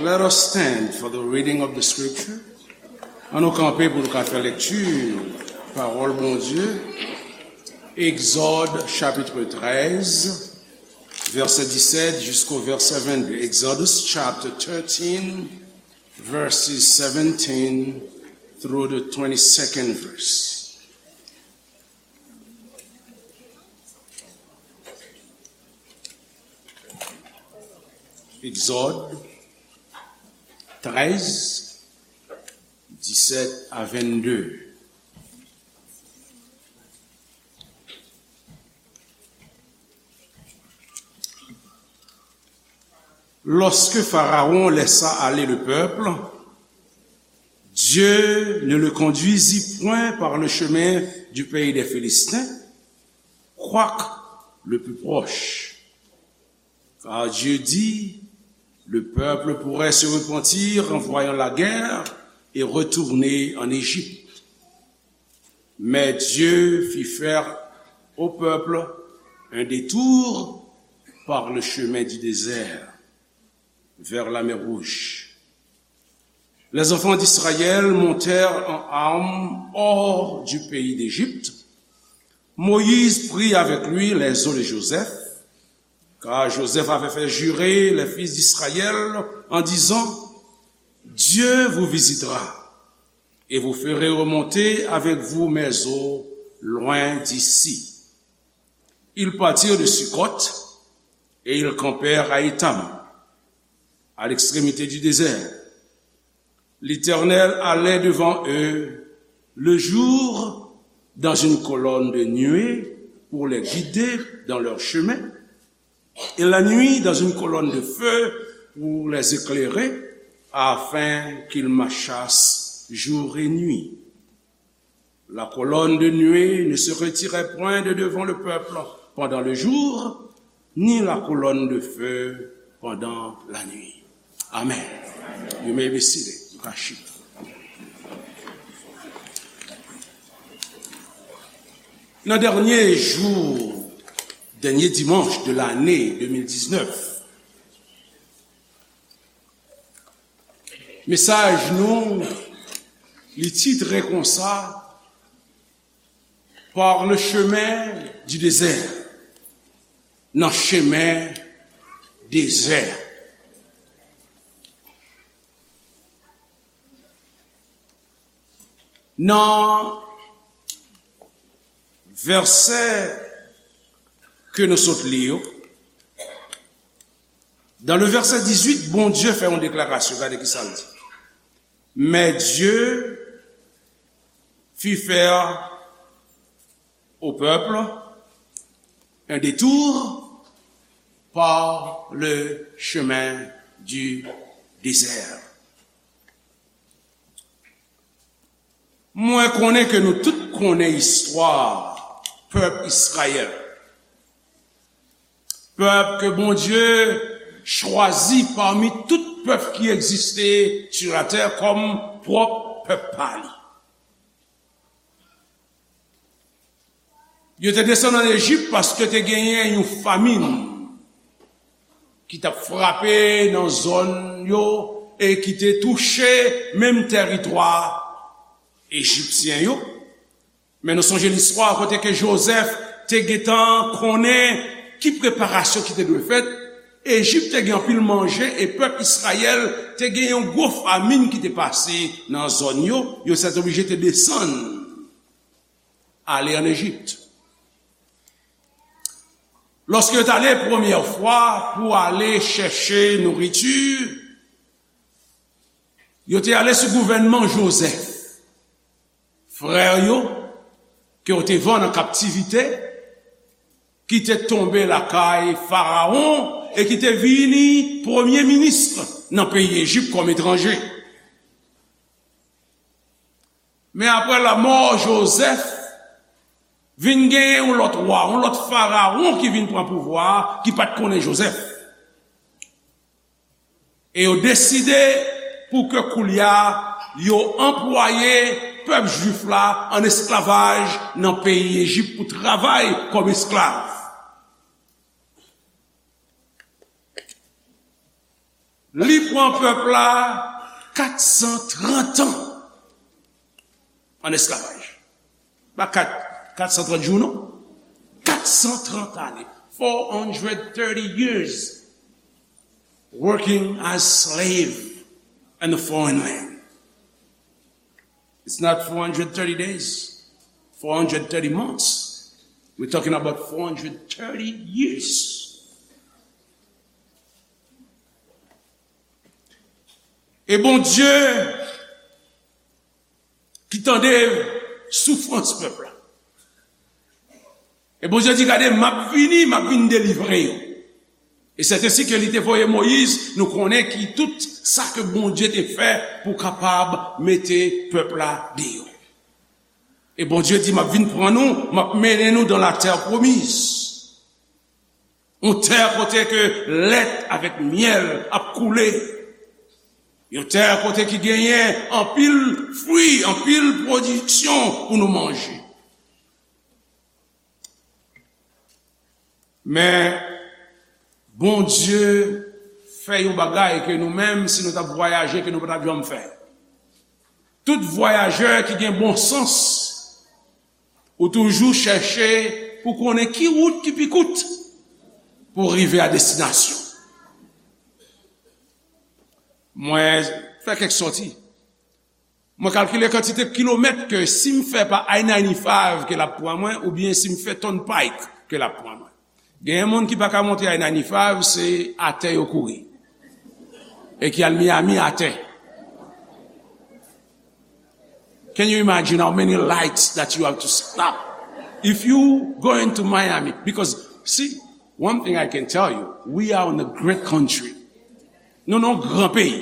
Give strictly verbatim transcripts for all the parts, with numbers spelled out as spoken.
Let us stand for the reading of the scripture. Ann nou kanpe pou nou ka fè lekti pawòl Bondye. Egzòd chapitre treize, vèsè disèt jisko vèsè vennde. Exodus chapter thirteen, verses seventeen through the twenty-second verse. Egzòd trèz, disèt a vennde. Lorsque Pharaon laissa aller le peuple, Dieu ne le conduisit point par le chemin du pays des Philistins, quoique le plus proche. Car Dieu dit, le peuple pourrait se repentir en voyant la guerre et retourner en Égypte. Mais Dieu fit faire au peuple un détour par le chemin du désert, vers la mer Rouge. Les enfants d'Israël montèrent en armes hors du pays d'Égypte. Moïse prit avec lui les os de Joseph, car Joseph avait fait jurer les fils d'Israël en disant, Dieu vous visitera et vous ferez remonter avec vous mes os loin d'ici. Ils partirent de Succoth et ils campèrent à Étam, à l'extrémité du désert. L'Éternel allait devant eux le jour dans une colonne de nuée pour les guider dans leur chemin, et la nuit dans une colonne de feu pour les éclairer, afin qu'ils marchassent jour et nuit. La colonne de nuée ne se retirait point de devant le peuple pendant le jour, ni la colonne de feu pendant la nuit. Amen. You may be seated. You can sit. Nan dènye jou, dènye dimanch de lane de mil diznèf, mesaj nou, li titre konsa, Par le chemin du désert. Nan chemen dezè. Nan vèsè ke nou sot li yo, dans le verset dix-huit, Bondye fè yon deklarasyon. Gade ki sa l di. Mais Dieu fit faire au peuple un détour par le chemin du désert. Mwen konnen ke nou tout konnen istwa pèp Izrayèl. Pèp ke Bondye chwazi pami tout pèp ki egziste sou latè kòm pwòp pèp pa li. Yo te desann ann Ejip paske te genyen yon famin ki t ap frape nan zòn yo e ki te touche menm tèritwa ejipsyen yo. Men nou sonje listwa kote ke Jozèf te gentan konnen ki preparasyon ki te dwe fèt. Ejip te gen anpil manje e pèp Izrayèl te gen yon gwo famin ki te pase nan zòn yo. Yo sètoblije te desann ale ann Ejip. Lòske yo t ale premyè fwa pou ale chèche nouriti, yo te ale sou gouvènman Jozèf. Frè yo, ke yo te vann an kaptivite, ki te tonbe lakay Farawon e ki te vini premye minis nan peyi Ejip kòm etranje. Men apre lanmò Jozèf, vin gen yon lòt wa, yon lòt Farawon ki vin pran pouvwa a, ki pa t konnen Jozèf. E yo deside pou ke koulye a yo anplwaye pèp jwif la ann esklavaj nan peyi Ejip pou travay kòm esklav. Li pran pèp la kat san trant an ann esklavaj. Pa kat, kat san trant jou, non. Kat san trant ane. Four hundred thirty years working as slave in a foreign land. It's not four hundred thirty days, four hundred thirty months. We're talking about four hundred thirty years. E Bondye ki tande soufrans pèp la. E Bondye di, "Gade, m ap vini, m ap vin delivre yo." E sètensi ke li te voye Moyiz, nou konnen ki tout sa ke Bondye te fè pou kapab mete pèp la deyò. E Bondye di, "M ap vin pran nou, m ap mennen nou dans la terre promise." Yon tè kote ke lèt avèk myèl ap koule. Yon tè kote ki genyen anpil fwi, anpil pwodiksyon pou nou manje. Men, Bondye fè yon bagay ke nou menm, si nou t ap vwayaje, ke nou pa t ap janm fè. Tout vwayajè ki gen bon sans, ou toujou chèche pou konnen ki wout ki pi kout pou rive a destinasyon. Mwen fè kèk sòti. Mwen kalkile kantite kilomèt ke si m fè pa I ninety-five ke l ap pran mwen, oubyen si m fè Turnpike ke l ap pran mwen. Genyen moun ki pa ka monte I ninety-five, se atè yo kouri. E ki al Miami atè. Can you imagine how many lights that you have to stop if you going to Miami? Because, see, one thing I can tell you, we are in a great country. Nou nan yon gran peyi.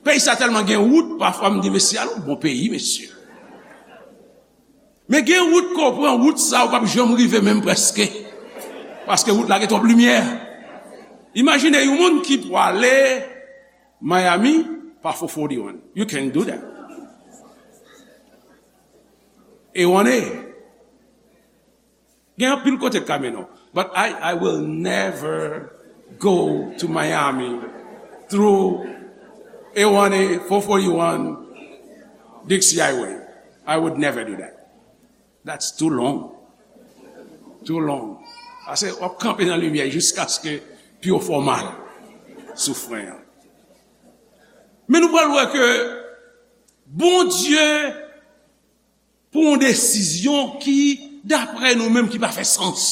Peyi sa tèlman gen wout, pafwa m di, "Mesye, al yon bon peyi, mesye." Men gen wout ke w pran, wout sa ou p ap janm rive menm prèske. Paske wout la gen twòp limyè. Imajine yon moun ki pwale Miami pa four forty-one. You can do that. E one A. Gen anpil kote k ka mennen w. But I, I will never go to Miami through A one A, four forty-one, Dixie Highway. I would never do that. That's too long. Too long. Paske w ap kanpe nan limyè jiskaske pye w fè w mal sou fren an. Men nou pral wè ke Bondye pran yon desizyon ki, daprè nou menm, ki pa fè sans.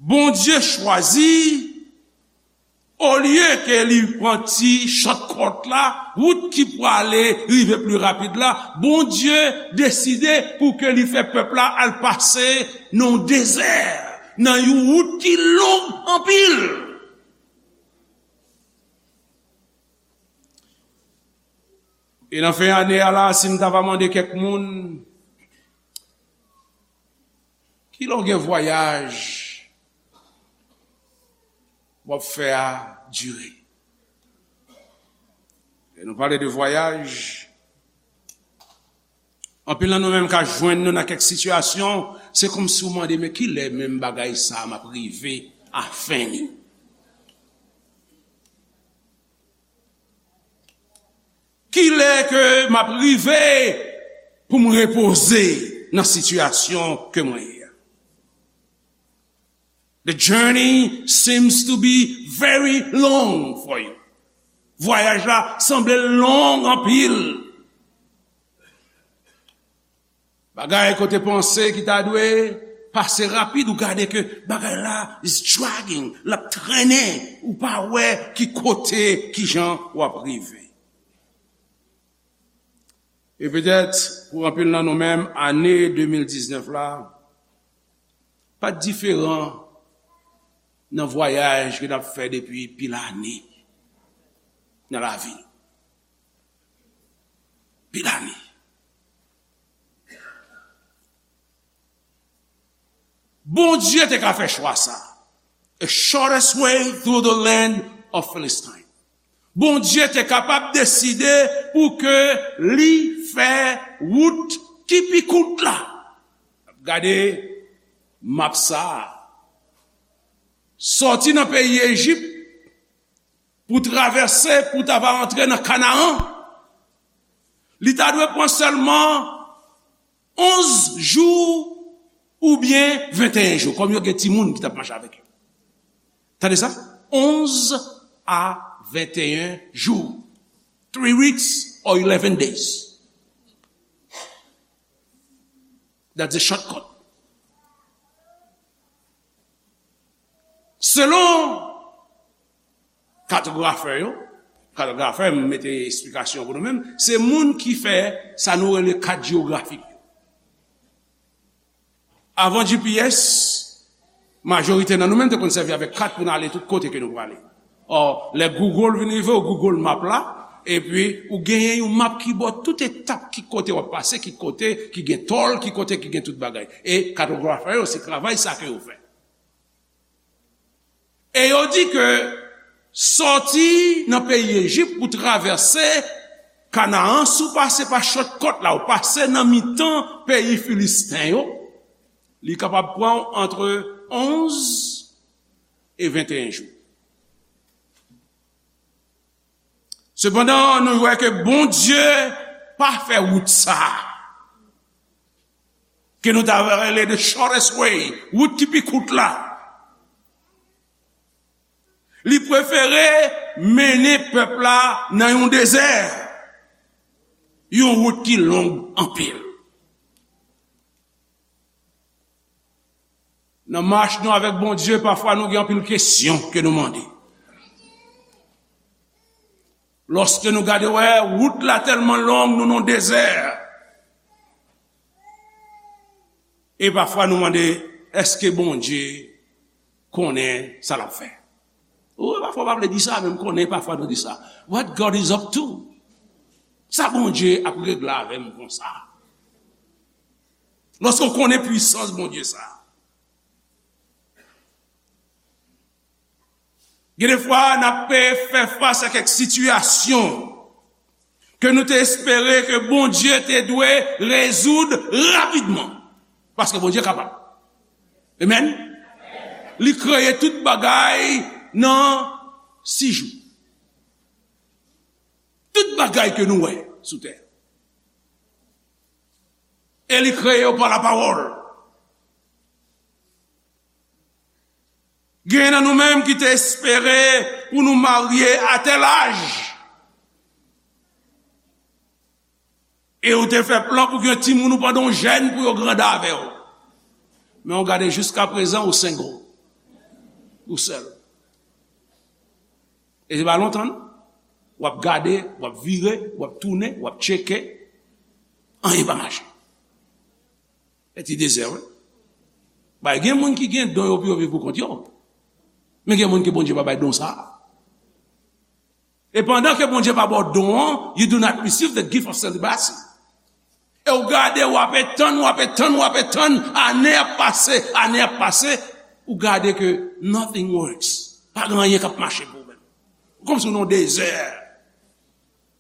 Bondye chwazi, olye ke li pran ti shortcut la, wout ki pwale rive pli rapid la, Bondye deside pou ke li fè pèp la al pase nan yon dezè, nan yon wout ki long anpil. E nan fen ane a la, si m ta va mande kèk moun, kilè w gen vwayaj w ap fè a dire? Lè nou pale de vwayaj, anpil nan nou menm ka jwenn nou nan kèk sitiyasyon, se kòmsi w mande, "Men kilè menm bagay sa a m ap rive a fen li?" Kilè ke m ap rive pou m repoze nan sitiyasyon ke mwen ye a? The journey seems to be very long for you. Vwayaj la sanble long anpil. Bagay ke w te panse ki ta dwe pase rapid, ou gade ke bagay la is dragging, l ap trennen, ou pa wè ki kote, ki jan w ap rive. E petèt, pou anpil nan nou menm, ane de mil diznèf la pa t diferan nan vwayaj ke n ap fè depi pil ane nan lavi. Pil ane. Bondye te ka fè chwa sa. A shortest way through the land of Philistine. Bondye te kapab deside pou ke li fè wout ki pi kout la. Gade map sa a. Sòti nan peyi Ejip, pou travèse, pou ta va antre nan Kanaran, li ta dwe pran sèlman onz jou oubyen venteyen jou, kòm yo gen timoun ki t ap mache avèk yo. Tande sa? Onz a venteyen jou. Three weeks or eleven days. That's a shortcut. Selon katografè yo, katografè, m mete esplikasyon pou nou menm, se moun ki fè sa nou rele kat jewografik yo. Avan G P S, majorite nan nou menm te konn sèvi avèk kat pou n ale tout kote ke nou prale. Ò, lè Google vin rive, ou Google Map la, epi ou genyen yon map ki ba w tout etap ki kote w ap pase, ki kote ki gen tòl, ki kote ki gen tout bagay. E katografè yo, se travay sa ke yo fè. E yo di ke sòti nan peyi Ejip pou travèse Kanaan, si w pase pa shortcut la, ou pase nan mitan peyi Filisten yo, li kapab pran w antre onz e venteyen jou. Sepandan, nou wè ke Bondye pa fè wout sa a, ke nou ta rele the shortest way, wout ki pi kout la. Li prefere mennen pèp la nan yon dezè, yon wout ki long anpil. Nan mach nou avèk Bondye, pafwa nou gen anpil kesyon ke nou mande. Lòske nou gade, wè, wout la tèlman long, nou nan dezè. E pafwa nou mande, èske Bondye konnen sa l ap fè? Ou wè, pafwa w pa vle di sa, men m konnen pafwa nou di sa. What God is up to? Sa Bondye ap regle avè m konsa? Lòske w konnen pwisans Bondye sa. Gen de fwa, n ap fè fas a kèk sitiyasyon ke nou te espere ke Bondye te dwe rezoud rapidman. Paske Bondye kapab. Amen. Li kreye tout bagay nan sis jou. Tout bagay ke nou wè sou tè. E li kreye yo pa lapawòl. Gen nan nou menm ki te espere pou nou marye a tèl aj. E ou te fè plan pou gen timoun ou pandan w jèn pou yo grandi avè w. Men w gade jiska prezan ou single. Ou sèl. E se pa lontan non. W ap gade, w ap vire, w ap tounen, w ap tcheke. Anyen pa mache. E ti dezè, wi. Bay, gen moun ki gen don yo pou yo viv pou kont yo. Men gen moun ke Bondye pa bay don sa a. E pandan ke Bondye pa ba w don an, you do not receive the gift of celibacy. E w gade, w ape tann, w ape tann, w ape tann, ane ap pase, ane ap pase, ou gade ke nothing works. Pa gen anyen k ap mache pou ou menm. Kòmsi w nan yon dezè,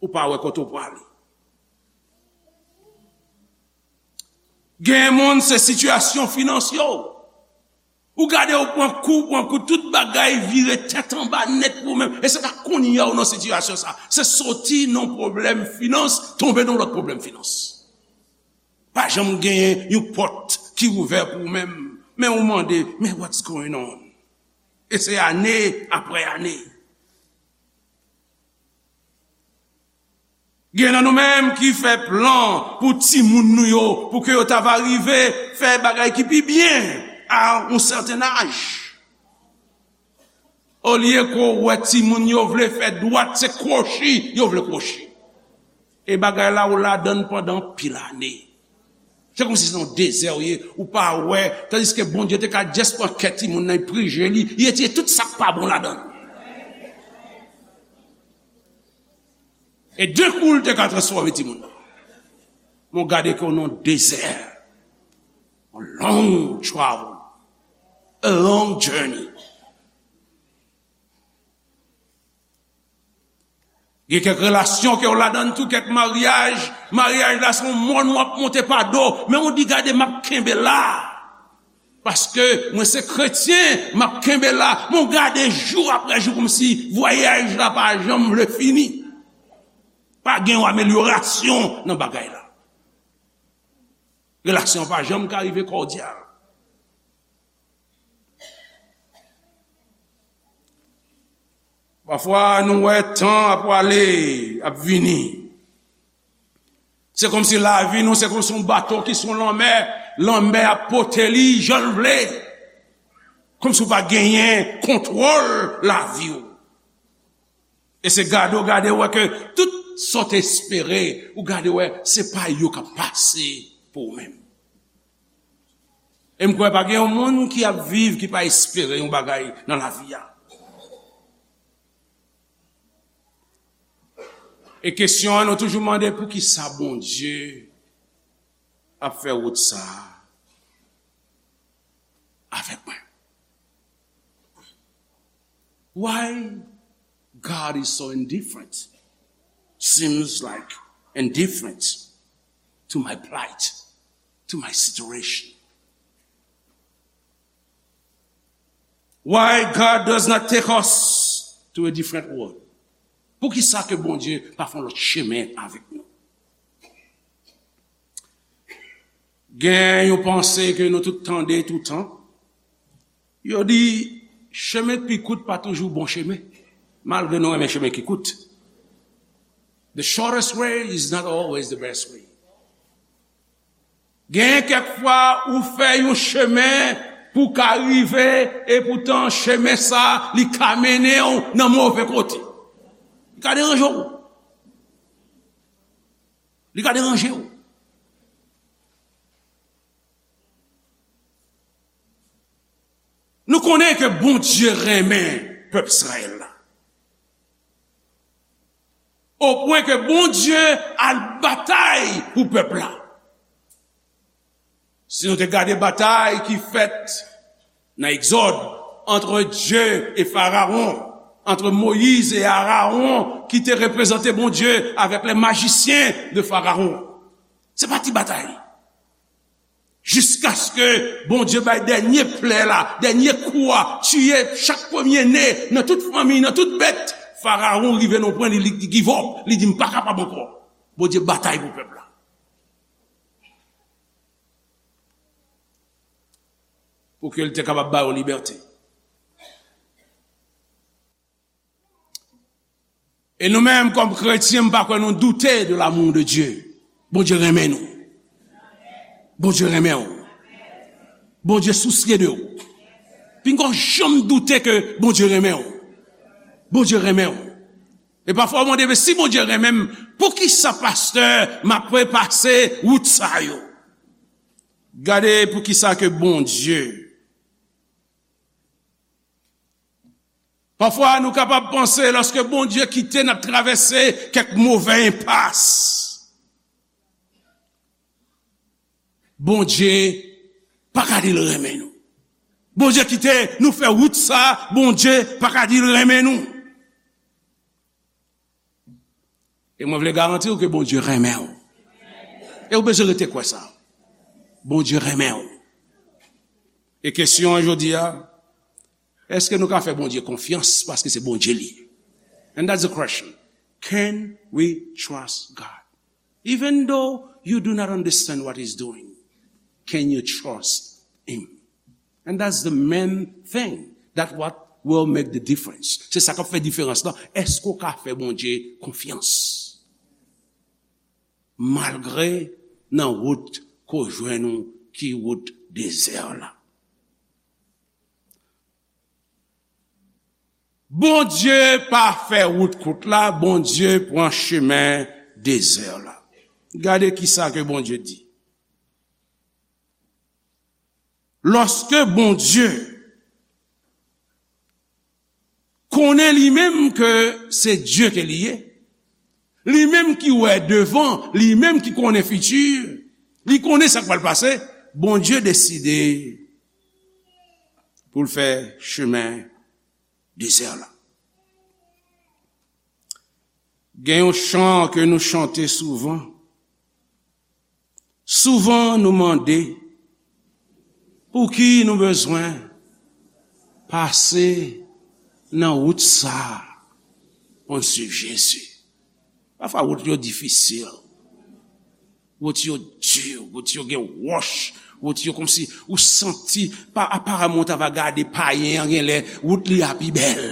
ou pa wè kote w prale. Gen moun, se sitiyasyon finans yo. Ou gade, ou pran kou, pran kou, tout bagay vire tèt anba nèt pou ou menm. E se pa kounye a ou nan sitiyasyon sa. Se soti nan pwoblèm finans, tonbe nan lòt pwoblèm finans. Pa janm genyen yon pòt ki ouvè pou ou menm. Men ou mande, men what's going on? E se ane apre ane. Gen nan nou menm ki fè plan pou timoun nou yo, pou ke yo ta va rive fè bagay ki pi byen a yon sèten aj. Olye ke w wè timoun yo vle fè dwat, se kwochi yo vle kwochi. E bagay la ou ladann pandan anpil ane. Se kòmsi se yon dezè w ye, ou pa wè, tandiske Bondye te ka just pran kè timoun nan, prije li, li retire tout sa k pa bon ladan l. E de kou l te ka transfòme timoun nan. Men w gade ke w nan dezè. A long travel. A long journey. Gen kèk relasyon ke w ladan tou, kèk maryaj, maryaj la se yon mòn w ap monte pa do, men w di gade m ap kenbe la. Paske mwen se kretyen, m ap kenbe la. Men w gade jou apre jou kòmsi vwayaj la pa janm vle fini. Pa gen yon amelyorasyon nan bagay la. Relasyon an pa janm ka rive kòdyal. Pafwa, nou wè tan ap prale, ap vini. Se kòmsi lavi nou, se kòmsi yon bato ki sou lanmè, lanmè ap pote li jan l vle. Kòmsi w pa genyen kontwòl lavi w. E se gade w gade w wè ke tout sa w te espere, ou gade w wè se pa yo k ap pase pou ou menm. E m kwè pa gen yon moun ki ap viv ki pa espere yon bagay nan lavi a. E kesyon an, nou toujou mande poukisa Bondye ap fè wout sa a avèk mwen? Why God is so indifferent? Seems like indifferent to my plight, to my situation. Why God does not take us to a different world? Poukisa ke Bondye pa fè yon lòt chemen avèk nou? Gen yon panse ke nou tout tande toutan. Yo di, chemen ki pi kout pa toujou bon chemen. Malgre nou renmen chemen ki kout. The shortest way is not always the best way. Gen kèk fwa ou fè yon chemen pou ka rive, epoutan chemen sa, li ka mennen w nan move kote. Li ka deranje w. Li ka deranje w. Nou konnen ke Bondye renmen pèp Izrayèl la. O pwen ke Bondye al batay pou pèp la. Si nou te gade batay ki fèt nan Egzòd, entre Dieu et Pharaon, entre Moïse et Aaron, ki te reprezante Bondye avèk les magiciens de Pharaon. Se pa ti batay. Jiskaske Bondye bay dènye plè la, dènye kou a, tiye chak premye ne nan tout fanmi, nan tout bèt. Farawon rive nan pwen, li, li give up, li di, "M pa kapab ankò." Bondye batay pou pèp la. Pou ke l te kapab ba yo libète. E nou menm, kòm kretyen, m pa kwè nou doute de l'amour de Dieu. Bondye renmen nou. Bondye renmen w. Bondye sousye de w. Pinga w janm doute ke Bondye renmen w. Bondye renmen w. E pafwa w mande, "Men si Bondye renmen m, poukisa, pastè, m ap repase wout sa yo?" Gade poukisa ke Bondye Pafwa, nou kapab panse, lòske Bondye kite n ap travèse kèk move enpas, Bondye pa ka di l renmen nou. Bondye kite nou fè wout sa, Bondye pa ka di l renmen nou. E mwen vle garanti w ke Bondye renmen w. E w bezwen rete kwè sa. Bondye renmen w. E kesyon an jodi a, èske nou ka fè Bondye konfyans paske se Bondye li ye? And that's the question. Can we trust God? Even though you do not understand what he's doing, can you trust him? And that's the main thing. That's what will make the difference. Se sa k ap fè diferans lan. Èske w ka fè Bondye konfyans? Malgre nan wout ke w jwenn ou ki wout dezè la. Bondye pa fè wout kout la, Bondye pran chemen dezè la. Gade kisa ke Bondye di. Lòske Bondye konnen li menm ke se Dye ke li ye, li menm ki wè devan, li menm ki konnen fiti, li konnen sa k pral pase, Bondye deside pou l fè chemen dezè la. Gen yon chan ke nou chante souvan. Souvan nou mande, Pouki nou bezwen pase nan wout sa a pou n swiv Jezi? Pafwa, wout yo difisil. Wout yo di, wout yo gen wòch, wout yo kòmsi ou santi, pa, aparamman, w ta va gade payen an, genlè wout li a pi bèl.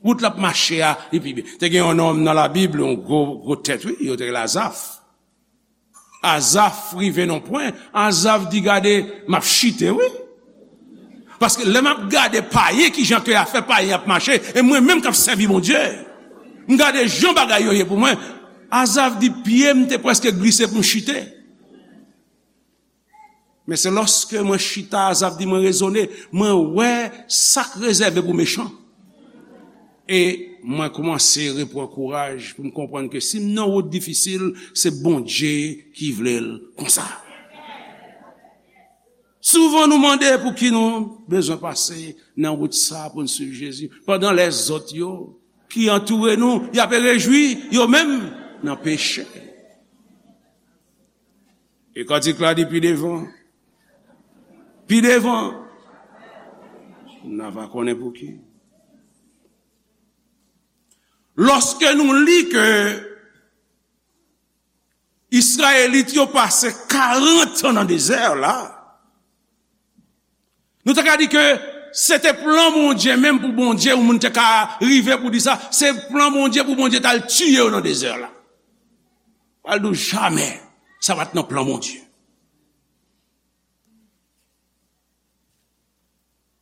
Wout l ap mache a, li pi bèl. Te gen yon nonm nan Labib, yon gwo, gwo tèt, wi, yo te rele Azaf. Azaf rive nan pwen, Azaf di, "Gade, m ap chite, wi. Paske lè m ap gade payen, kijan ke afè payen ap mache, e mwen menm k ap sèvi Bondye, m gade jan bagay yo ye pou mwen." Azaf di, "Pye m te prèske glise pou m chite. Men se lòske mwen chita," Azaf di, "mwen rezone, mwen wè sa k rezève pou mechan. E mwen kòmanse reprann kouraj pou m konprann ke si m nan wout difisil, se Bondye ki vle l konsa." Souvan nou mande pouki nou bezwen pase nan wout sa pou n swiv Jezi, pandan lèzòt yo ki antoure nou, y ap rejwi yo menm nan peche. E kantik la di pi devan, pi devan, n a va konnen pouki. Lòske nou li ke Izrayelit yo pase karant an nan dezè la, nou ta ka di ke se te plan Bondye menm pou Bondye, yon moun te ka rive pou di sa, se plan Bondye pou Bondye t al tiye yo nan dezè la. Pral di w jamè, sa pa t nan plan Bondye.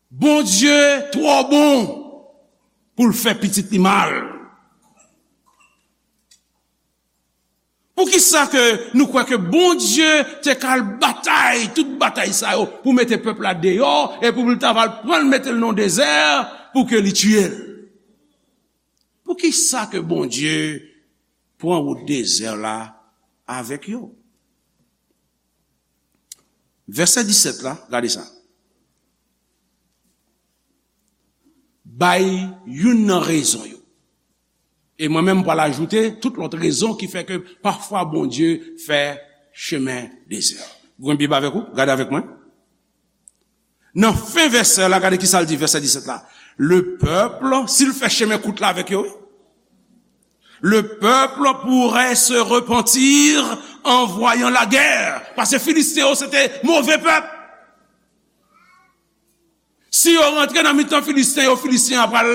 Bondye twò bon pou l fè pitit li mal. Poukisa ke nou kwè ke Bondye te ka al batay, tout batay sa yo, pou mete pèp la deyò, e pou l ta va al pran l mete l nan dezè, pou ke li tiye l? Poukisa ke Bondye pran wout dezè la avèk yo? Vèsè disèt la, gade sa. Bay youn nan rezon yo. E mwen menm, m pral ajoute tout lòt rezon ki fè ke pafwa Bondye fè chemen dezè. Ou gen Bib avèk ou? Gade avèk mwen. Nan fen vèsè la, gade ki sa l di, vèsè disèt la. Le peuple, si l fè chemen kout la avèk yo, wi. Le peuple pourrait se repentir en voyant la guerre. Paske Filisten yo, se te move pèp. Si yo rantre nan mitan Filisten yo, Filisten yo pral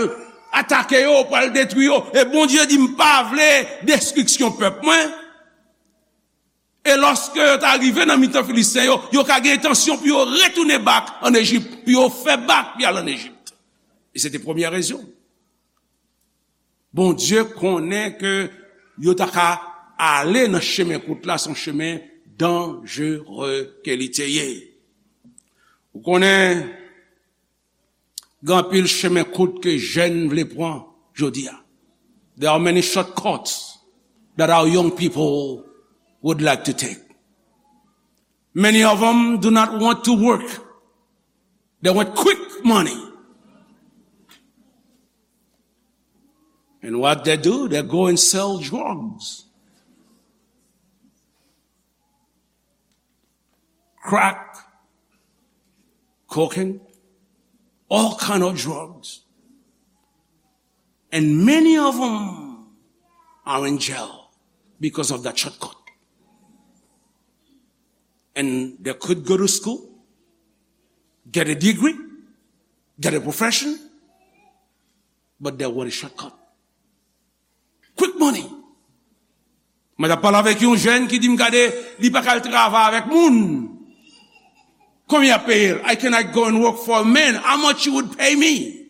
atake yo, pral detwi yo. E Bondye di, "M pa vle destriksyon pèp mwen." E lòske yo ta rive nan mitan Filisten yo, yo ka gen entansyon pou yo retounen back ann Ejip, pou yo fè back pou y al ann Ejip. E se te premyè rezon. Bondye konnen ke yo ta ka ale nan chemen kout la, se yon chemen danjere ke li te ye. Ou konnen, gen anpil chemen kout ke jèn vle pran jodi a. There are many shortcuts that our young people would like to take. Many of them do not want to work. They want quick money. And what they do, they go and sell drugs. Crack, cocaine, all kind of drugs. And many of them are in jail because of that shortcut. And they could go to school, get a degree, get a profession, but they want a shortcut. Quick money. Mwen t ap pale avèk yon jèn ki di m, gade, li pa ka al travay avèk moun. Konbyen y ap peye l? I cannot go and work for a man. How much you would pay me?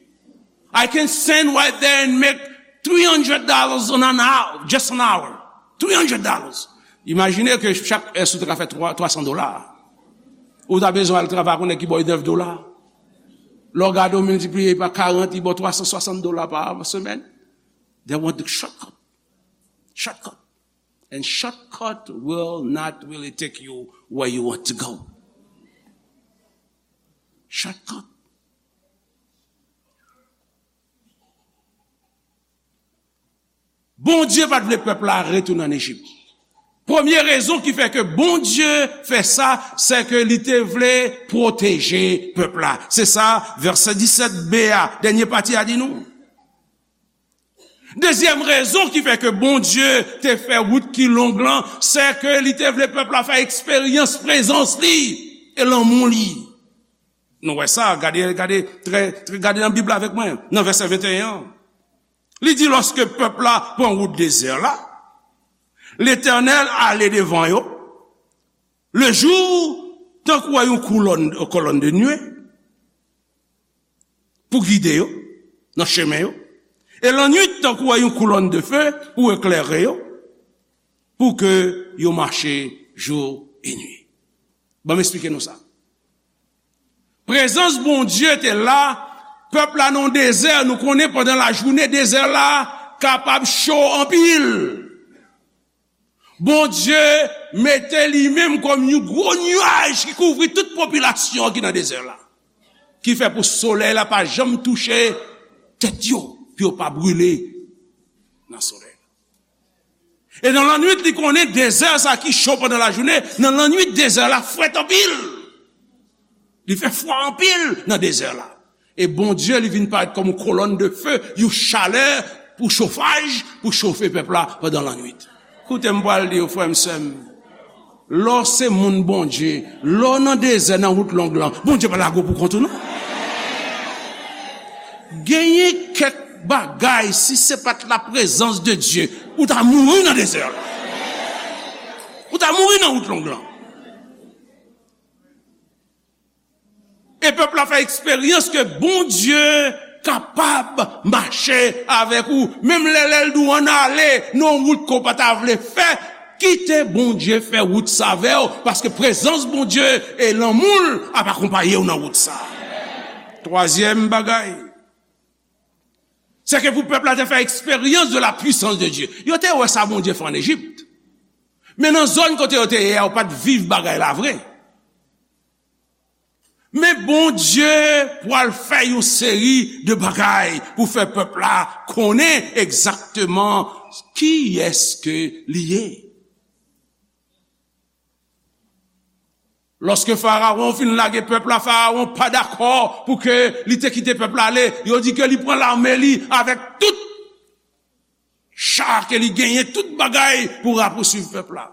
I can stand right there and make three hundred dollars on an hour, just an hour. Three hundred dollars. Imajine ke chak è si w te ka fè twa, twa san dola. Ou ta bezwen al travay ak yon nèg ki ba w nèf dola. Lè w gade, w miltipliye pa karant, li ba w twa san swasant dola pa semèn. They want the shortcut. Shortcut. And shortcut will not really take you where you want to go. Shortcut. Bondye pa t vle pèp la retounen ann Ejip. Premye rezon ki fè ke Bondye fè sa, se ke li te vle pwoteje pèp la. Se sa vèsè disèt b a, dènye pati a di nou. Dezyèm rezon ki fè ke Bondye te fè wout ki long lan, se ke li te vle pèp la fè eksperyans prezans li e lanmou li. Nou wè sa, gade, gade, trè, trè, gade nan Bib la avèk mwen, nan vèsè venteyen an. Li di, lòske pèp la pran wout dezè la, Letènèl ale devan yo, lejou, tankou yon koulòn, kolonn de nwe, pou gide yo nan chemen yo, e lannwit, tankou yon koulòn de fe pou eklere yo, pou ke yo mache jou e nwi. Ban m esplike nou sa. Prezans Bondye te la, pèp la nan dezè, nou konnen pandan lajounen, dezè la kapab cho anpil. Bondye mete li menm kòm yon gwo nyaj ki kouvri tout popilasyon ki nan dezè la. Ki fè pou solèy la pa janm touche tèt yo, pou yo pa brile nan solèy la. E nan lannwit, li konnen dezè sa ki cho pandan lajounen, nan lannwit, dezè la frèt anpil. Li fè fwa anpil nan dezè la. E Bondye, li vin parèt kòm yon kolòn de fe, yon chalè pou chofaj, pou chofe pèp la pandan lannwit. Koute m pral di w, frè m, sè m, lè w se moun Bondye, lè w nan dezè, nan wout long lan, Bondye pa lage w pou kont ou, non. Genyen kèk bagay, si se pa t laprezans de Dye, ou ta mouri nan dezè la. Ou ta mouri nan wout long lan. E pèp la fè eksperyans ke Bondye kapab mache avèk ou. Menm lè, lè l di w ann ale nan yon wout ke w pa ta vle fè, kite Bondye fè wout sa avè w, paske prezans Bondye e lanmou l ap akonpaye w nan wout sa. Twazyèm bagay, se ke pou pèp la te fè eksperyans de la puissance de Dieu. Yo te wè sa Bondye fè ann Ejip. Men nan zòn kote yo te ye a, yo pa t viv bagay la vre. Men Bondye pral fè yon seri de bagay pou fè pèp la konnen egzakteman kiyès ke li ye. Lòske Farawon fin lage pèp la, Farawon pa dakò pou ke li te kite pèp la ale. Yo di ke li pran lame li avèk tout cha ke li genyen, tout bagay pou rapousuiv pèp la.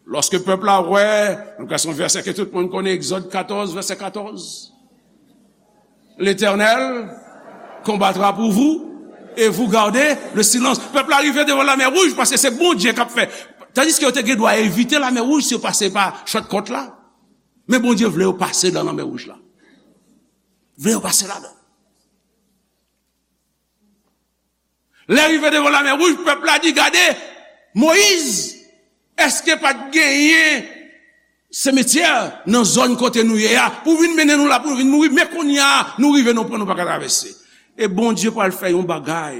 Lòske pèp la wè, nou ka se yon vèsè ke tout moun konnen, Egzòd katòz, vèsè katòz. L'Éternel combattra pour vous et vous gardez le silence. Pèp la rive devan Lamè Wouj paske se Bondye k ap fè. Tandiske yo te gen dwa evite Lamè Wouj si yo pase pa shortcut la. Men Bondye vle yo pase nan Lamè Wouj la. Vle yo pase ladan. Lè rive devan Lamè Wouj, pèp la di, gade, Moyiz, èske pa t genyen semetyè nan zòn kote nou ye a, pou vin mennen nou la pou nou vin mouri, men kounye a, nou rive, nou pran, nou pa ka travèse. E Bondye pral fè yon bagay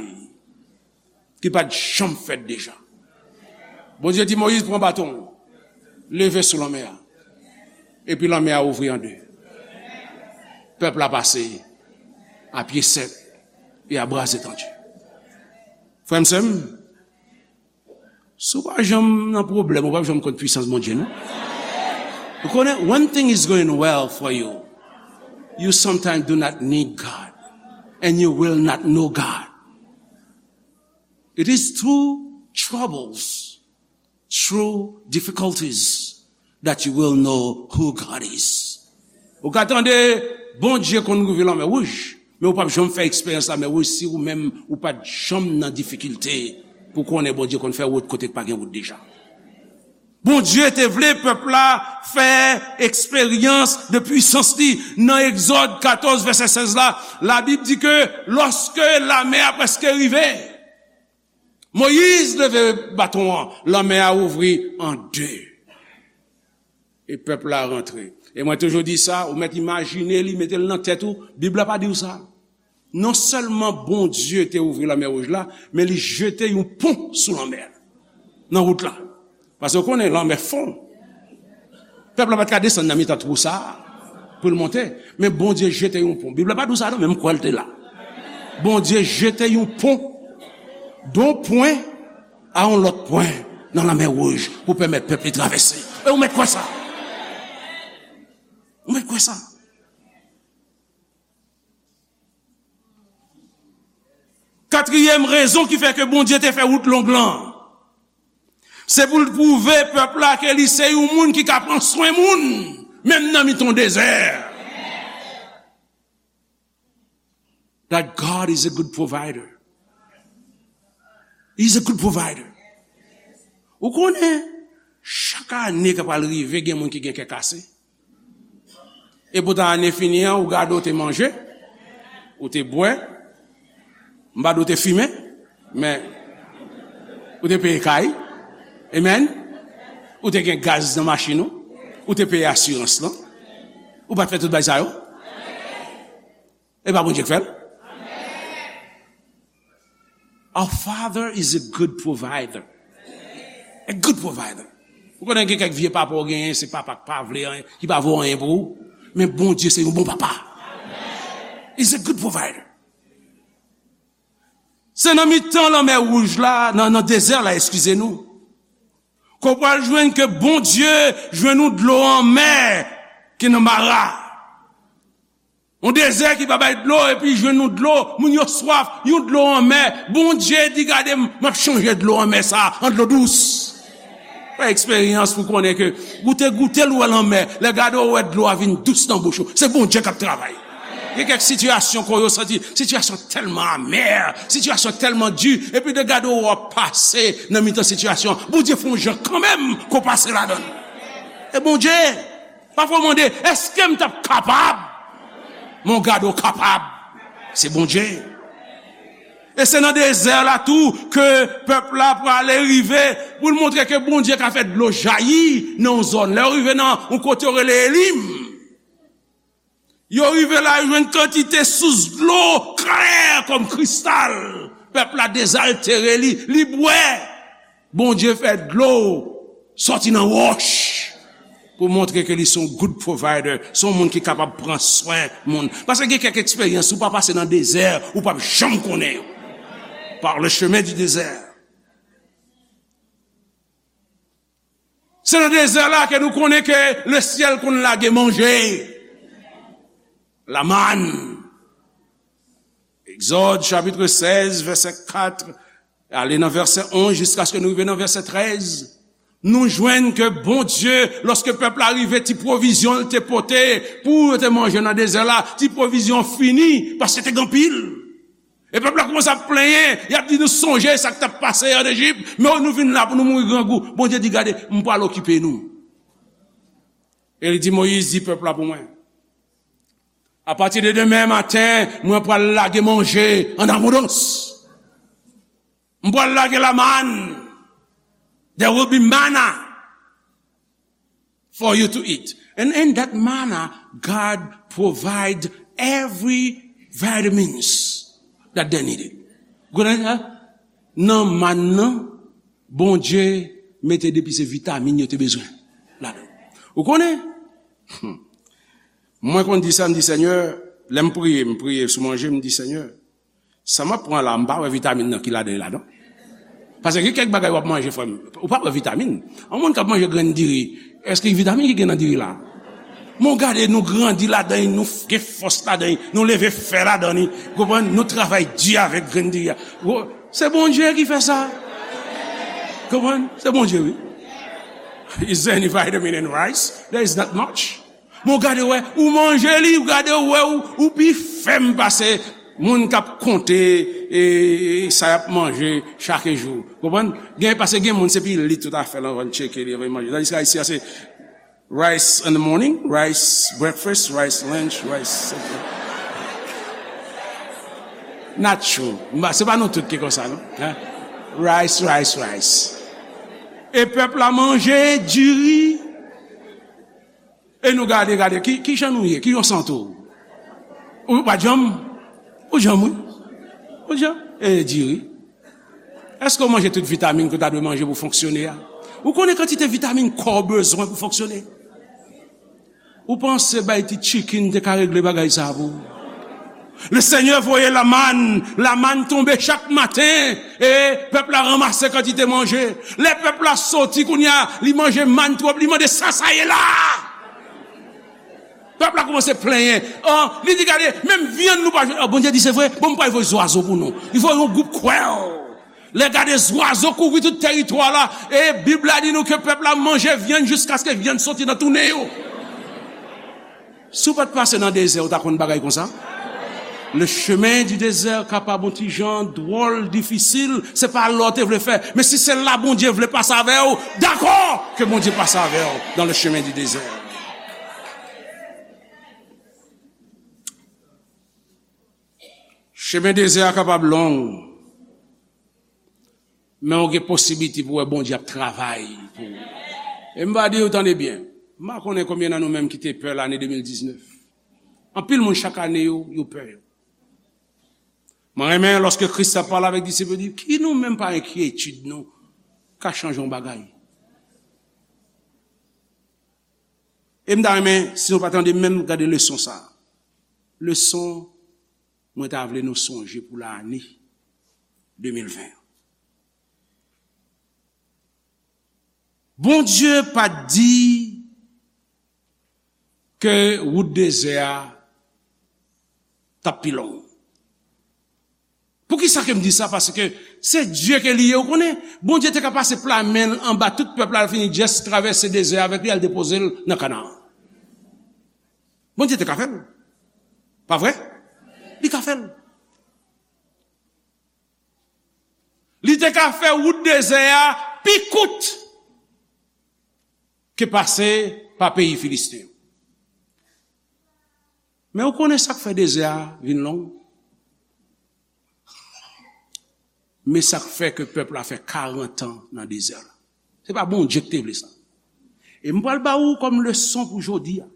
ki pa t janm fèt deja. Bondye di Moyiz, pran baton w, leve sou lanmè a. Epi lanmè a ouvri an de. Pèp la pase a pye sèk e a bra etandi. Frè m, sè m, si w pa janm nan pwoblèm, ou p ap janm konn pwisans Bondye, non. Ou konnen, when thing is going well for you, you sometimes do not need God, and you will not know God. It is through troubles, through difficulties, that you will know who God is. Ou ka tande Bondye konn rive Lamè Wouj, men ou p ap janm fè eksperyans Lamè Wouj si ou menm ou pa t janm nan difikilte pou konnen Bondye konn fè wout kote k pa gen wout deja. Bondye te vle pèp la fè eksperyans de pwisans li. Nan Egzòd katòz, vèsè sèz la, Labib di ke lòske lamè a prèske rive, Moyiz leve baton an, lanmè a ouvri an de. E pèp la rantre. E mwen toujou di sa, ou mèt imajine li, mete l nan tèt ou, Bib la pa di w sa. Non sèlman Bondye te ouvri Lamè Wouj la, men li jete yon pon sou lanmè a, nan wout la. Paske w konnen, lanmè fon. Pèp la pa t ka desann nan mitan twou sa a pou l monte, men Bondye jete yon pon. Bib la pa di w sa non, men m kwè l te la. Bondye jete yon pon, d'un point à un autre point. nan Lanmè Wouj pou pèmèt pèp li travèse. E ou mèt kwè sa? Ou mèt kwè sa? Katriyèm rezon ki fè ke Bondye te fè wout long lan, se pou l pwouve pèp la ke li se yon moun ki ka pran swen moun, menm nan mitan dezè. That God is a good provider. He's a good provider. Ou konnen, chak ane k ap al rive, gen moun ki gen kè kase. E poutan ane fini an, ou gade ou te manje, ou te bwè, m pa di ou te fimen, men ou te peye kay, amen, ou te gen gaz nan machin ou, ou te peye asirans lan, ou pa t fè tout bagay sa yo? E pa Bondye k fè l? Our Father is a good provider. A good provider. Ou konnen gen kèk vye papa ou genyen, se papa k pa vle anyen, ki pa vo anyen pou ou. Men Bondye se yon bon papa. He's a good provider. Se nan mitan Lanmè Wouj la, nan, nan dezè la, eskize nou, ke w pral jwenn ke Bondye jwenn ou dlo anmè ki nan Mara. Yon dezè ki pa bay dlo, epi jwenn yon dlo, moun yo swaf, yon dlo anmè. Bondye di, "Gade, m, m ap chanje dlo anmè sa a an dlo dous." Fè eksperyans pou konnen ke ou te goute l, ou wè l anmè. Lè gade, ou wè dlo a vin dous nan bouch ou. Se Bondye k ap travay. Gen kèk sitiyasyon ke w santi, sitiyasyon tèlman amè, sitiyasyon tèlman di, epi lè gade, ou ap pase nan mitan sitiyasyon. Bondye fè yon jan kanmenm ke w pase ladan l. E Bondye, pafwa w mande, "Èske m t ap kapab?" Men w gade w kapab. Se Bondye. E se nan dezè la tou ke pèp la prale rive pou l montre ke Bondye ka fè dlo jayi nan yon zòn. Lè yo rive nan yon kote yo rele Elim, yo rive la, yo jwenn kantite sous dlo klè kòm kristal. Pèp la dezaltere li, li bwè. Bondye fè dlo sòti nan wòch pou montre ke li se yon good provider, se yon moun ki kapab pran swen moun. Paske gen kèk eksperyans, ou pa pase nan dezè, ou p ap janm konnen yo. Par le chemin du désert. Se nan dezè la ke nou konnen ke lesyèl konn lage manje. Lamann. Egzòd, chapit sèz, vèsè kat, ale nan vèsè onz, jiskaske nou rive nan vèsè trèz. Nou jwenn ke Bondye, lòske pèp la rive, ti pwovizyon l te pote pou yo te manje nan dezè la, ti pwovizyon fini, paske te gen anpil. E pèp la kòmanse ap plenyen, y ap di, "Nou sonje sa k t ap pase an Ejip, men nou vin la pou nou mouri grangou." Bondye di, "Gade, m pral okipe nou." E li di, "Moyiz, di pèp la pou mwen, apati de demen maten, mwen pral lage manje an abondans. M pral lage lamann. There will be manna for you to eat. And in that manna, God provide every vitamins that they needed." Konnen sa? Nan mann nan, Bondye mete depi se vitamin yo te bezwen ladan. Ou konnen? Hmm. Mwen konn di sa, m di, "Senyè," lè m priye, m priye sou manje, m di, "Senyè, sa m ap pran la, m pa wè vitamin nan ki ladan, ladan." Paske gen kèk bagay w ap manje, frè m, ou pa wè vitamin. Yon moun k ap manje grenn diri, èske vitamin ki gen nan diri la? Men w gade, nou grandi ladan li, nou f-, gen fòs ladan li, nou leve fè ladan li, konprann? Nou travay di avèk grenn diri a. Wo-, se Bondye ki fè sa. Konprann? Se Bondye, wi. Is there any vitamin in rice? There is not much. Men w gade, w wè, ou manje li, w gade, w wè, ou, ou pi fèm pase moun k ap konte, e, e, sa y ap manje chak jou. Konprann? Gen, paske gen moun, se pi lit tout afè lan, van tcheke li, van manje. Tandiske Ayisyen an, se rice in the morning, rice breakfast, rice lunch, rice supper. Not true. M pa, se pa nou tout ki konsa, non? Hein? Rice, rice, rice. E pèp la manje diri. E nou gade, gade, ki, ki jan nou ye? Ki jan w santi w? Ou pa janm? Ou janm, wi. Ou janm? E diri. Èske w manje tout vitamin ke w ta dwe manje pou fonksyone a? Ou konnen kantite vitamin kò w bezwen pou fonksyone? Ou panse bay ti chicken te ka regle bagay sa pou ou? Le Senyè voye lamann, lamann tonbe chak maten, e pèp la ranmase kantite manje. Lè pèp la soti kounye a, li manje mann twòp, li mande, "Sa sa ye la?" Pèp la kòmanse plenyen. An, li di, "Gade, menm vyann nou pa jwenn." An, Bondye di, "Se vre? Bon, m pral voye zwazo pou nou." Li voye yon gwoup kwèl. Lè gade zwazo kouvri tout tèritwa la, e Bib la di nou ke pèp la manje vyann jiskaske vyann soti nan tou nen yo. Si w pa t pase nan dezè, ou ta konn bagay konsa? Le chemin du désert kapab yon ti jan dwòl, difisil, se pa lè w te vle fè, men si se la Bondye vle pase avè w, dakò ke Bondye pase avè w dans le chemin du désert. Chemen dezè a kapab long, men w gen posiblite pou w wè Bondye ap travay pou ou. E m va di w, tande byen, m pa konnen konbyen nan nou menm ki te pè lane de mil diznèf. Anpil moun chak ane yo, yo pè yo. Mwen renmen lòske Kris ap pale avèk disip yo, di, "Ki nou menm pa enkyetid nou ka chanje yon bagay?" E m ta renmen, si nou pa tande menm, gade leson sa a. Leson mwen ta vle nou sonje pou lane de mil ven an. Bondye pa t di ke wout dezè a t ap pi long. Poukisa ke m di sa? Paske se Dye ke li ye, ou konnen. Bondye te ka pase pla men l anba tout pèp la, al fini just travèse dezè a avèk li, al depoze l nan Kanaan. Bondye te ka fè l. Pa vre? Li ka fè l. Li te ka fè wout dezè a pi kout ke pase pa peyi Filisten yo. Men ou konnen sa k fè dezè a vin long? Men sa k fè ke pèp la fè karant an nan dezè la. Se pa Bondye ki te vle sa. E m pral ba ou kòm leson pou jodi a.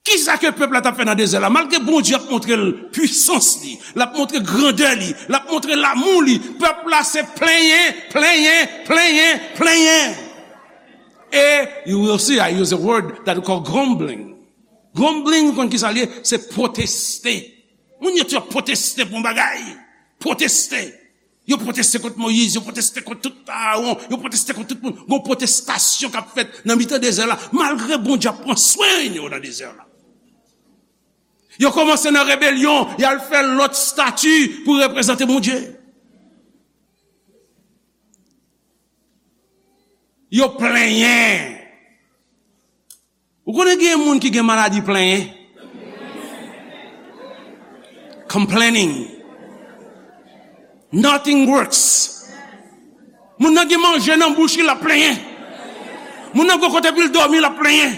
Kisa ke pèp la t ap fè nan dezè la? Malgre Bondye ap montre l pwisans li, l ap montre grandè li, l ap montre lamou li, pèp la se plenyen, plenyen, plenyen, plenyen. E you will see, I use a word that we call grumbling. Grumbling, ou konn kisa l ye? Se pwoteste. Moun yo tou ap pwoteste pou yon bagay. Pwoteste. Yo pwoteste kont Moyiz, yo pwoteste kont tout Aawon, yo pwoteste kont tout moun. Gon pwotestasyon k ap fèt nan mitan dezè la, malgre Bondye ap pran swen yo nan dezè la. Yo kòmanse nan rebelyon, y al fè lòt stati pou reprezante Bondye. Yo plenyen. Ou konnen gen moun ki gen maladi plenyen? Complaining. Nothing works. Moun nan gen manje nan bouch li, l ap plenyen. Moun nan gen kote pou l dòmi, l ap plenyen.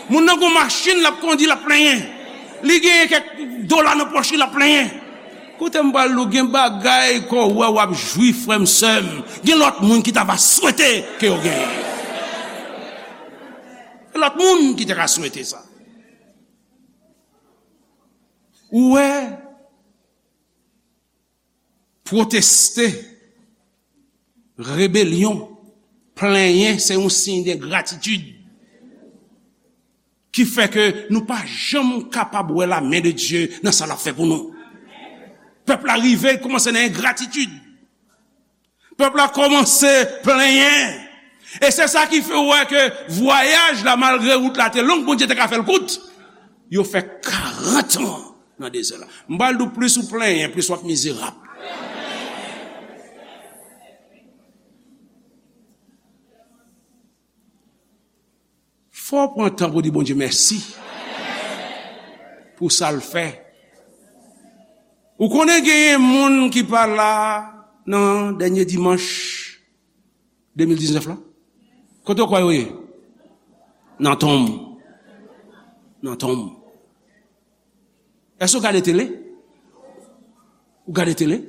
Moun nan gen machin l ap kondi, l ap plenyen. Li genyen kèk dola nan pòch li, l ap plenyen. Koute m pral di w, gen bagay ke w wè w ap jwi, frè m, sè m, gen lòt moun ki ta va swete ke yo genyen. Gen lòt moun ki te ka swete sa. Ou wè, pwoteste, rebelyon, plenyen, se yon siy de gratitid ki fè ke nou pa janm kapab wè la men de Dye nan sa l ap fè pou nou. Pèp la rive kòmanse nan engratitid. Pèp la kòmanse plenyen. E se sa ki fè w wè ke vwayaj la, malgre wout la te long, Bondye te ka fè l kout. Yo fè karant an nan dezè la. M pral di w, plis ou plenyen, plis w ap mizerab. Fò w pran tan pou di Bondye mèsi pou sa l fè. Ou konnen genyen moun ki pa la nan dènye dimanch de mil diznèf la? Kote w kwè yo ye? Nan tonm. Nan tonm. Èske w gade tele? Ou gade tele?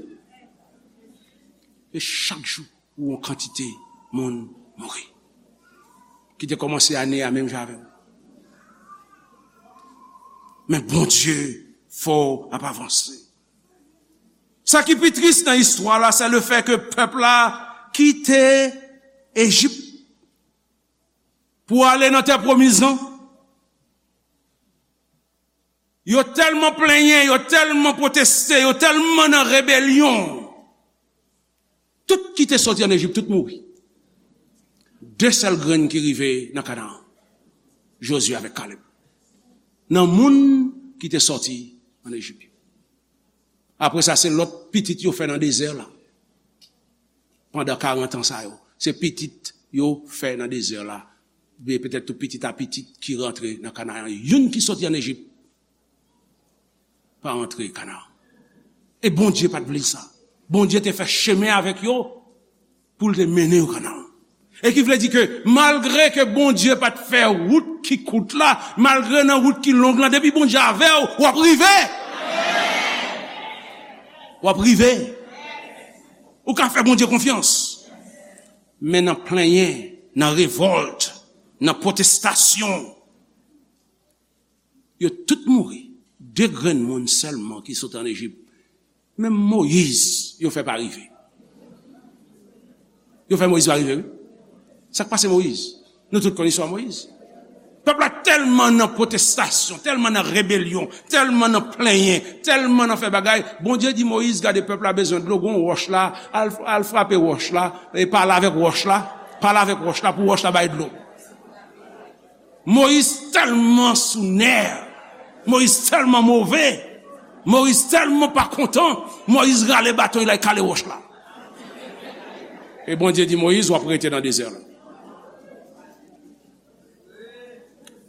E chak jou, ou yon kantite moun mouri. Ki te kòmanse ane a menm jan avè w. Men Bondye fè w ap avanse. Sa ki pi tris nan istwa la, se le fè ke pèp la kite Ejip pou ale nan tè pwomiz lan. Yo tèlman plenyen, yo tèlman pwoteste, yo tèlman nan rebelyon. Tout ki te soti ann Ejip, tout mouri. De sèl grenn ki rive nan Kanaan. Jozye avèk Kalèb. Nan moun ki te soti ann Ejip. Apre sa, se lòt pitit yo fè nan dezè la. Pandan karant an sa yo, se pitit yo fè nan dezè la. Oubyen petèt tou pitit a pitit ki rantre nan Kanaan. Youn ki soti ann Ejip pa rantre Kanaan. E Bondye pa t vle sa. Bondye te fè chemen avèk yo pou l te mennen yo Kanaan. E ki vle di ke malgre ke Bondye pa t fè wout ki kout la, malgre nan wout ki long lan, depi Bondye avè w, w ap rive. W ap rive. Ou ka fè Bondye konfyans. Men nan plenyen, nan revòlt, nan pwotestasyon, yo tout mouri. De grenn moun sèlman ki sot ann Ejip. Menm Moyiz, yo fè pa rive. Yo fè Moyiz pa rive, wi. Sa k pase Moyiz? Nou tout konn istwa Moyiz. Pèp la tèlman nan pwotestasyon, tèlman nan rebelyon, tèlman nan plenyen, tèlman nan fè bagay. Bondye di Moyiz, gade pèp la bezwen dlo, gon wòch la, al, al frape wòch la, e pale avèk wòch la, pale avèk wòch la pou wòch la bay dlo. Moyiz tèlman sou nè, Moyiz tèlman move, Moyiz tèlman pa kontan, Moyiz rale baton, l al kale wòch la. E Bondye di Moyiz, w ap rete nan dezè la.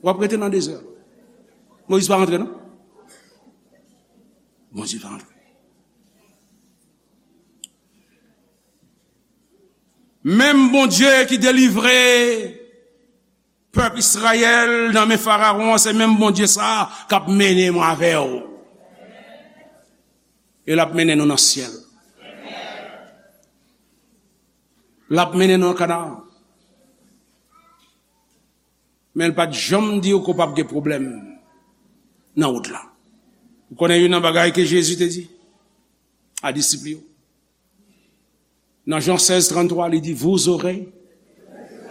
W ap rete nan dezè la. Moyiz pa rantre, non? Bondye pa rantre. Menm Bondye ki delivre pèp Izrayèl nan men Farawon an, se menm Bondye sa a k ap mennen mwen avè w. E l ap mennen nou nan syèl. L ap mennen nou nan Kanaan. Men l pa t janm di w ke w p ap gen pwoblèm nan wout la. Ou konnen youn nan bagay ke Jezi te di a disip li yo? Nan Jan sèz tranntrwa, li di, vous aurez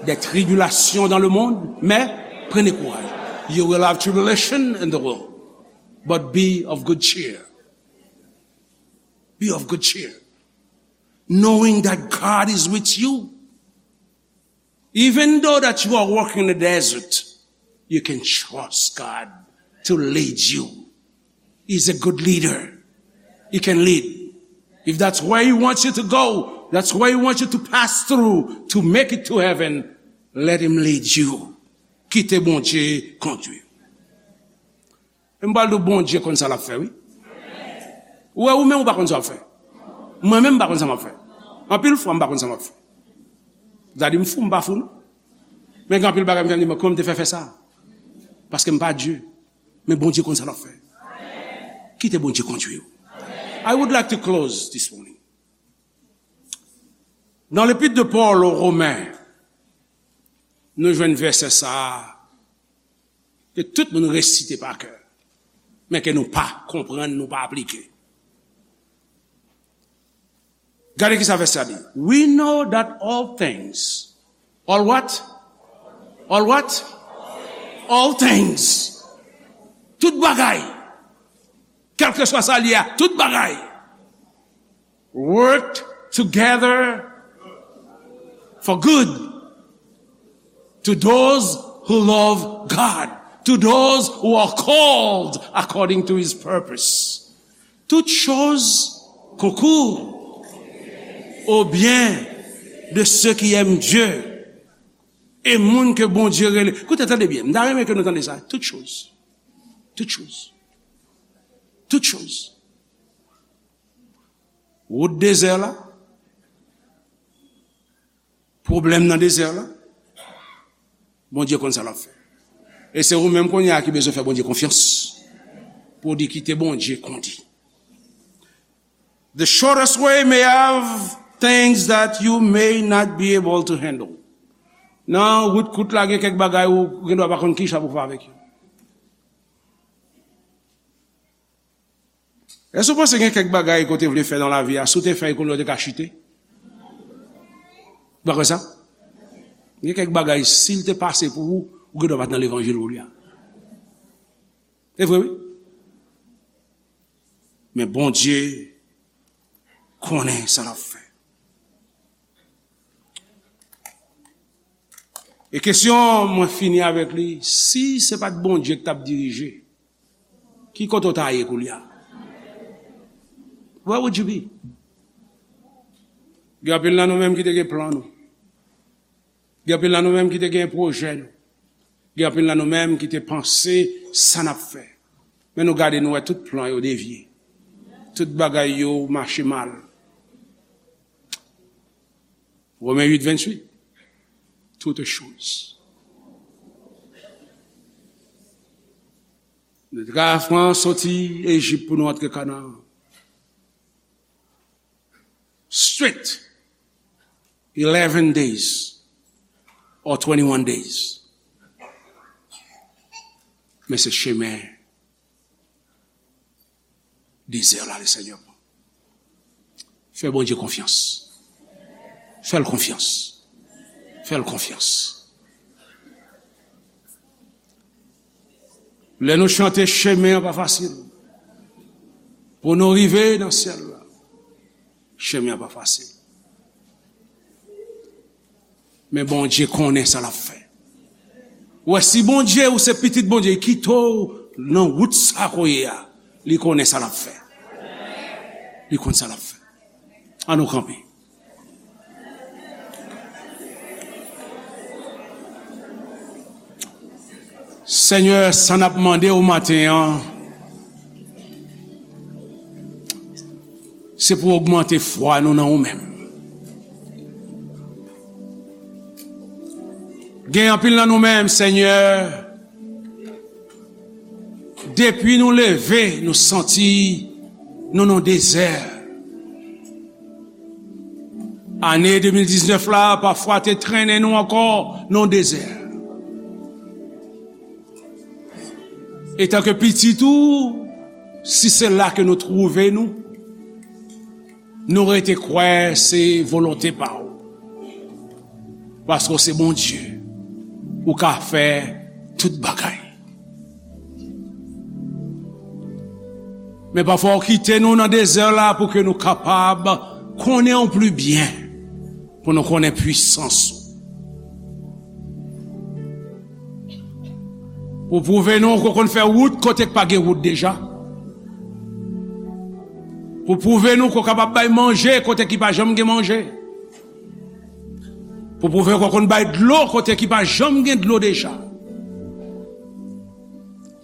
des tribulations dans le monde, mais prenez courage. You will have tribulation in the world, but be of good cheer. Be of good cheer. Knowing that God is with you. Even though that you are walking in the desert, you can trust God to lead you. He's a good leader. He can lead. If that's where He wants you to go, that's where He wants you to pass through to make it to heaven, let Him lead you. Kite Bondye kondwi. E m pral di w, Bondye konn sa l ap fè, wi. Ou wè, ou menm, ou pa konn sa w ap fè. Mwen menm, m pa konn sa m ap fè. Anpil fwa, m pa konn sa m ap fè. Gade, m fou, m pa fou, non. Men gen anpil bagay m fè, m di, "Men kòman m te fè fè sa?" Paske m pa Dye. Men Bondye konn sa l ap fè. Kite Bondye kondwi w. I would like to close this morning. Nan lepit de Pòl o Romen, nou jwenn vèsè sa a ke tout moun resite pa kè, men ke nou pa konprann, nou pa aplike. Gade ki sa vèsè a di. We know that all things, all what? All what? All things. Tout bagay. Kèlkeswa sa l ye a, tout bagay work together for good to those who love God, to those who are called according to His purpose. Toutes choses concourent au bien de ceux qui aiment Dieu. E moun ke Bondye rele. Koute, tande byen. M ta renmen ke nou tande sa. Toutes choses. Toutes choses. Toutes choses. Wout dezè la, pwoblèm nan dezè la, Bondye konn sa l ap fè. E se ou menm kounye a ki bezwen fè Bondye konfyans pou w di kite Bondye kondi. The shortest way may have things that you may not be able to handle. Nan wout kout la, gen kèk bagay ou gen dwa pa konn ki jan pou w fè avèk yo. Èske w panse gen kèk bagay ke w te vle fè nan lavi a, si w te fè l kounye a w te ka chite? Ou pa kwè sa? Gen kèk bagay, si l te pase pou ou, ou gen dwa pa t nan levanjil kounye a. Se vre, wi. Men Bondye konnen sa l ap fè. E kesyon mwen fini avèk li, si se pa t Bondye ki t ap dirije, ki kote w ta ye koulye a? Where would you be? Gen anpil nan nou menm ki te gen plan nou. Gen anpil nan nou menm ki te gen pwojè nou. Gen anpil nan nou menm ki te panse sa n ap fè. Men nou gade, nou wè tout plan yo devye. Tout bagay yo mache mal. Women uit venntuit. Toutes choses. Nou te ka pran soti Ejip pou nou antre Kanaan. Straight. Eleven days or twenty-one days. Men se chemen dezè la, le Senyè. Fè Bondye konfyans. Fè l konfyans. Fè l konfyans. Lè nou chante, chemen an pa fasil. Pou nou rive nan syèl la, chemen an pa fasil. Men Bondye konnen sa l ap fè. Ou wè, si Bondye, ou se pitit Bondye, li kite w nan wout sa ke w ye a, li konnen sa l ap fè. Li konn sa l ap fè. An nou kanpe. Senyè, sa n ap mande w maten an, se pou w ogmante fwa nou nan ou menm. Gen anpil nan nou menm, Senyè, depi nou leve, nou santi nou nan dezè. Ane de mil diznèf la, pafwa te trennen nou ankò nan dezè. Etanke pitit ou, si se la ke nou twouve nou, nou rete kwè se volonte pa w. Paske w se Bondye, ou ka fè tout bagay. Men pafwa w kite nou nan dezè la pou ke nou kapab konnen w pli byen, pou nou konnen pwisans ou. Pou pwouve nou ke w konn fè wout kote k pa gen wout deja. Pou pwouve nou ke w kapab bay manje kote ki pa janm gen manje. Pou pwouve ke w konn bay dlo kote ki pa janm gen dlo deja.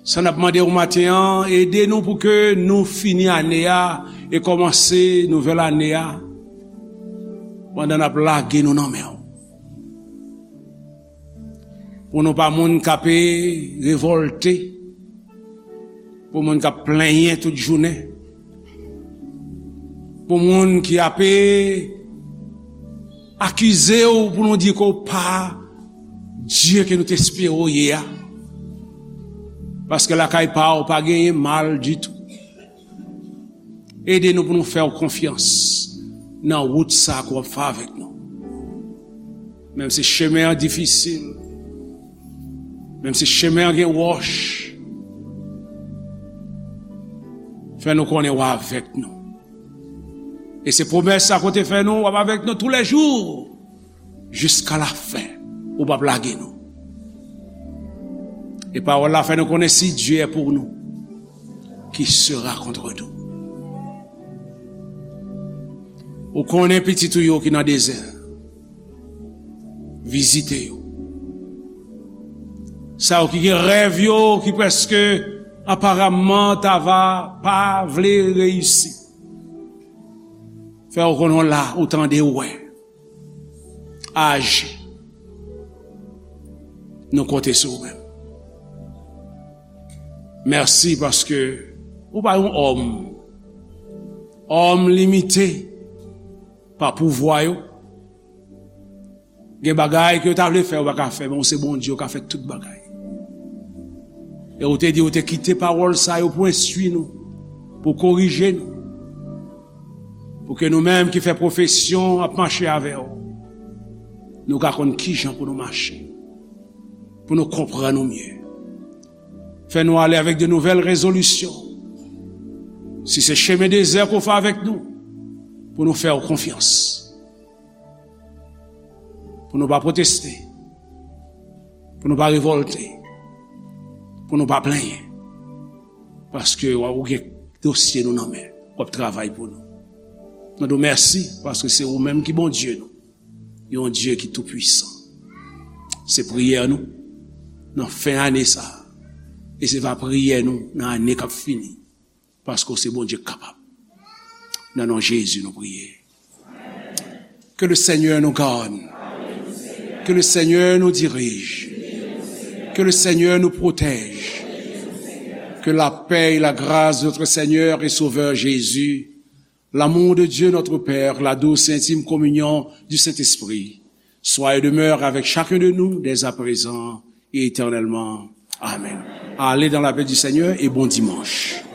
Sa n ap mande w maten an, ede nou pou ke nou fini ane a e kòmanse nouvèl ane a pandan n ap lage nou nan men w. Pou nou pa moun k ap revòlte, pou moun k ap plenyen tout jounen, pou moun ki ap akize w, pou nou di ke w pa Dye ke nou te espere w ye a. Paske lakay pa w pa genyen mal ditou. Ede nou pou nou fè w konfyans nan wout sa ke w ap fè avèk nou. Menm si chemen an difisil, menm si chemen an gen wòch, fè nou konnen w avèk nou. E se pwomès sa ke w te fè nou, w ap avèk nou toulèjou, jiska lafen, ou p ap lage nou. E pawòl la fè nou konnen, si Dieu est pour nous, qui sera contre nous? Ou konnen pitit ou yo ki nan dezè. Vizite yo. Sa yo ki gen rèv yo, ki prèske aparamman ta va pa vle reyisi. Fè yo konnen w la, ou tande, ou wè. Aji. Nou konte sou ou menm. Mèsi paske ou pa yon òm. Òm limite pa pouvwa yo. Gen bagay ke yo ta vle fè, yo pa ka fè, men ou se Bondye, ou ka fè tout bagay. E ou te di, ou te kite pawòl sa yo pou enstwi nou, pou korije nou, pou ke nou menm ki fè pwofesyon ap mache avè w, nou ka konn kijan pou nou mache, pou nou konprann ou mye. Fè nou ale avèk de nouvèl rezolisyon. Si se chemen dezè ke w fè avèk nou, pou nou fè w konfyans. Pou nou pa pwoteste. Pou nou pa revòlte. Pou nou pa plenyen. Paske w ap gen dosye nou nan men. W ap travay pou nou. Nou di w mèsi paske se ou menm ki Bondye nou. Yon Dye ki toupwisan. Se priyè nou nan fen ane sa a. E se va priyè nou nan ane k ap fini. Paske w se Bondye k kapab. Nan non Jezi nou priye. Que le Seigneur nous garde. Que le Seigneur nous dirige. Que le Seigneur nous protège. Que la paix et la grâce de notre Seigneur et Sauveur Jésus, l'amour de Dieu notre Père, la douce et intime communion du Saint-Esprit, soit et demeure avec chacun de nous dès à présent et éternellement. Amen. Allez dans la paix du Seigneur et bon dimanche.